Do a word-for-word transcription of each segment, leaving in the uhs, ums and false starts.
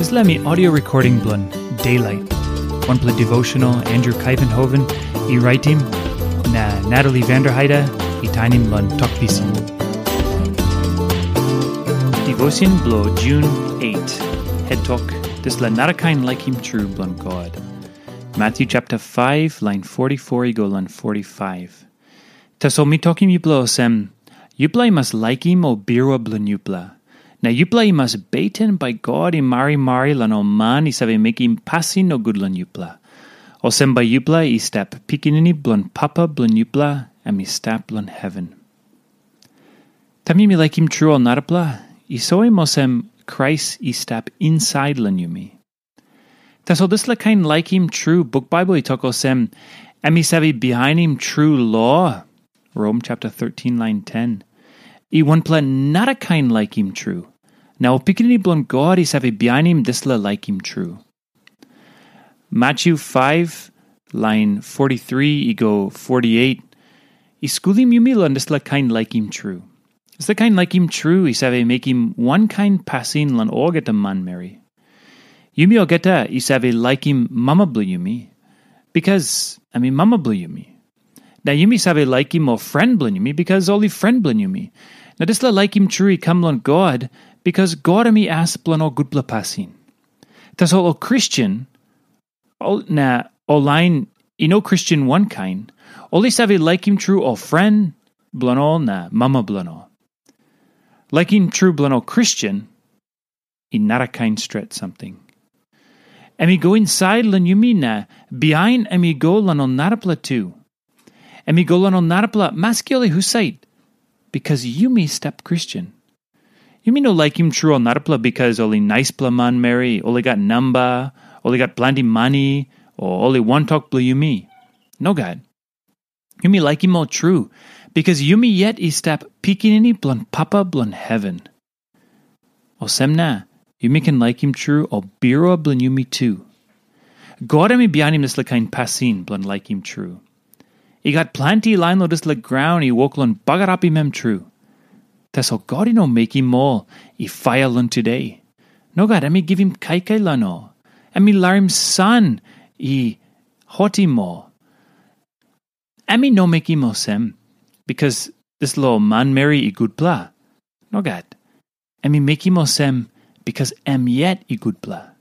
Dispela mi audio recording bilong Daylight, wanpela devotional Andrew Kaivenhoven i raitim, na Natalie Vanderheide i tainim long Tok Pisin. Devotion bilong June eight, het tok, dispela narakain laikim tru bilong God. Matthew chapter five, line forty-four i go long forty-five. Tasol mi tokim yupela olsem, yupela i mas laikim ol birua bilong yupela. Na yupela i mas beten bai God i marimari long ol man i save mekim pasin nogut long yupela. Olsem bai yupela i stap pikinini bilong Papa bilong yupela, em i stap long heven. Taim yumi laikim tru ol narapela, i soim olsem Krais i stap insait long yumi. Tasol dispela kain laikim tru, buk Bible i tok olsem, em i save bihainim tru lo, Rom chapter thirteen, line ten, i wanpela narakain laikim tru. Na ol pikinini bilong God i save bihainim dispela laikim tru. Matthew five, line forty-three i go forty-eight, i skulim yumi long dispela kain laikim tru. Dispela kain laikim tru i save mekim wankain pasin long olgeta manmeri. Yumi olgeta i save laikim mama bilong yumi, bikas em i mama bilong yumi. Na yumi save laikim ol fren bilong yumi, bikas ol i fren bilong yumi. Na dispela laikim tru i kam long God, bikas God em i as bilong ol gutpela pasin. Tasol ol Kristen, ol, na ol lain i no Kristen wankain, ol i save laikim tru ol fren bilong ol na mama bilong ol. Laikim tru bilong ol Kristen i narakain stret samting. Em i go insait long yumi na bihain em i go long ol narapela tu. Em i go long ol narapela maski ol i husat, bikas yumi stap Kristen. Yumi no laikim tru ol narapela bikas ol i naispela manmeri, ol i gat namba, ol i gat planti mani, o ol i wantok bilong yumi. Nogat. Yumi laikim ol tru, bikas yumi yet i stap pikinini bilong Papa bilong heven. Olsem na, yumi ken laikim tru ol birua bilong yumi tu. God em i bihainim dispela kain pasin bilong laikim tru. I gat planti lain long dispela graun i wok long bagarapim em tru. Tasol God i no mekim ol i faia long tude. Nogat, em i givim kaikai long ol. Em i larim san i hotim ol. Em i no mekim olsem, bikas dispela ol manmeri i gutpela. Nogat. Em i mekim olsem, bikas em yet i gutpela.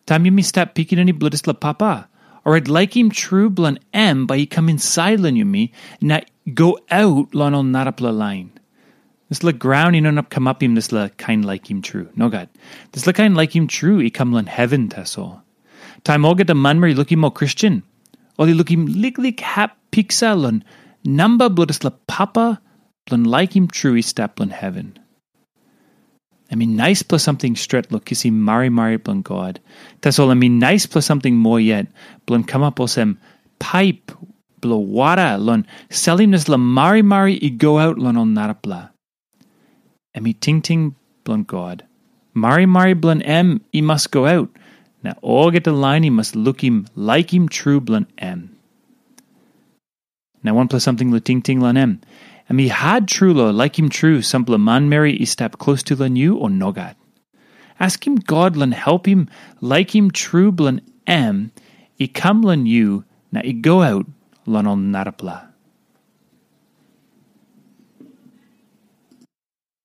Taim yumi stap pikinini bilong dispela Papa, orait laikim tru bilong em bai i kam insait long yumi na go aut long ol narapela lain. Dispela graun i no inap kamapim dispela kain laikim tru. Nogat. Dispela kain laikim tru i kam long heven tasol. Taim olgeta manmeri i lukim ol Kristen, ol i lukim liklik hap piksa long namba bilong dispela Papa bilong laikim tru i stap long heven. Em i naispela samting stret long kisim marimari bilong God. Tasol em i naispela samting moa yet bilong kamap olsem paip bilong wara long salim dispela marimari i go aut long ol narapela. Em i tingting bilong God. Marimari bilong em i mas go aut, na olgeta lain i mas lukim laikim tru bilong em. Na wanpela samting long tingting long em. Em i hat tru long laikim tru sampela manmeri i stap klostu long yu o nogat. Askim God long helpim laikim tru bilong em i kam long yu na i go aut long ol narapela.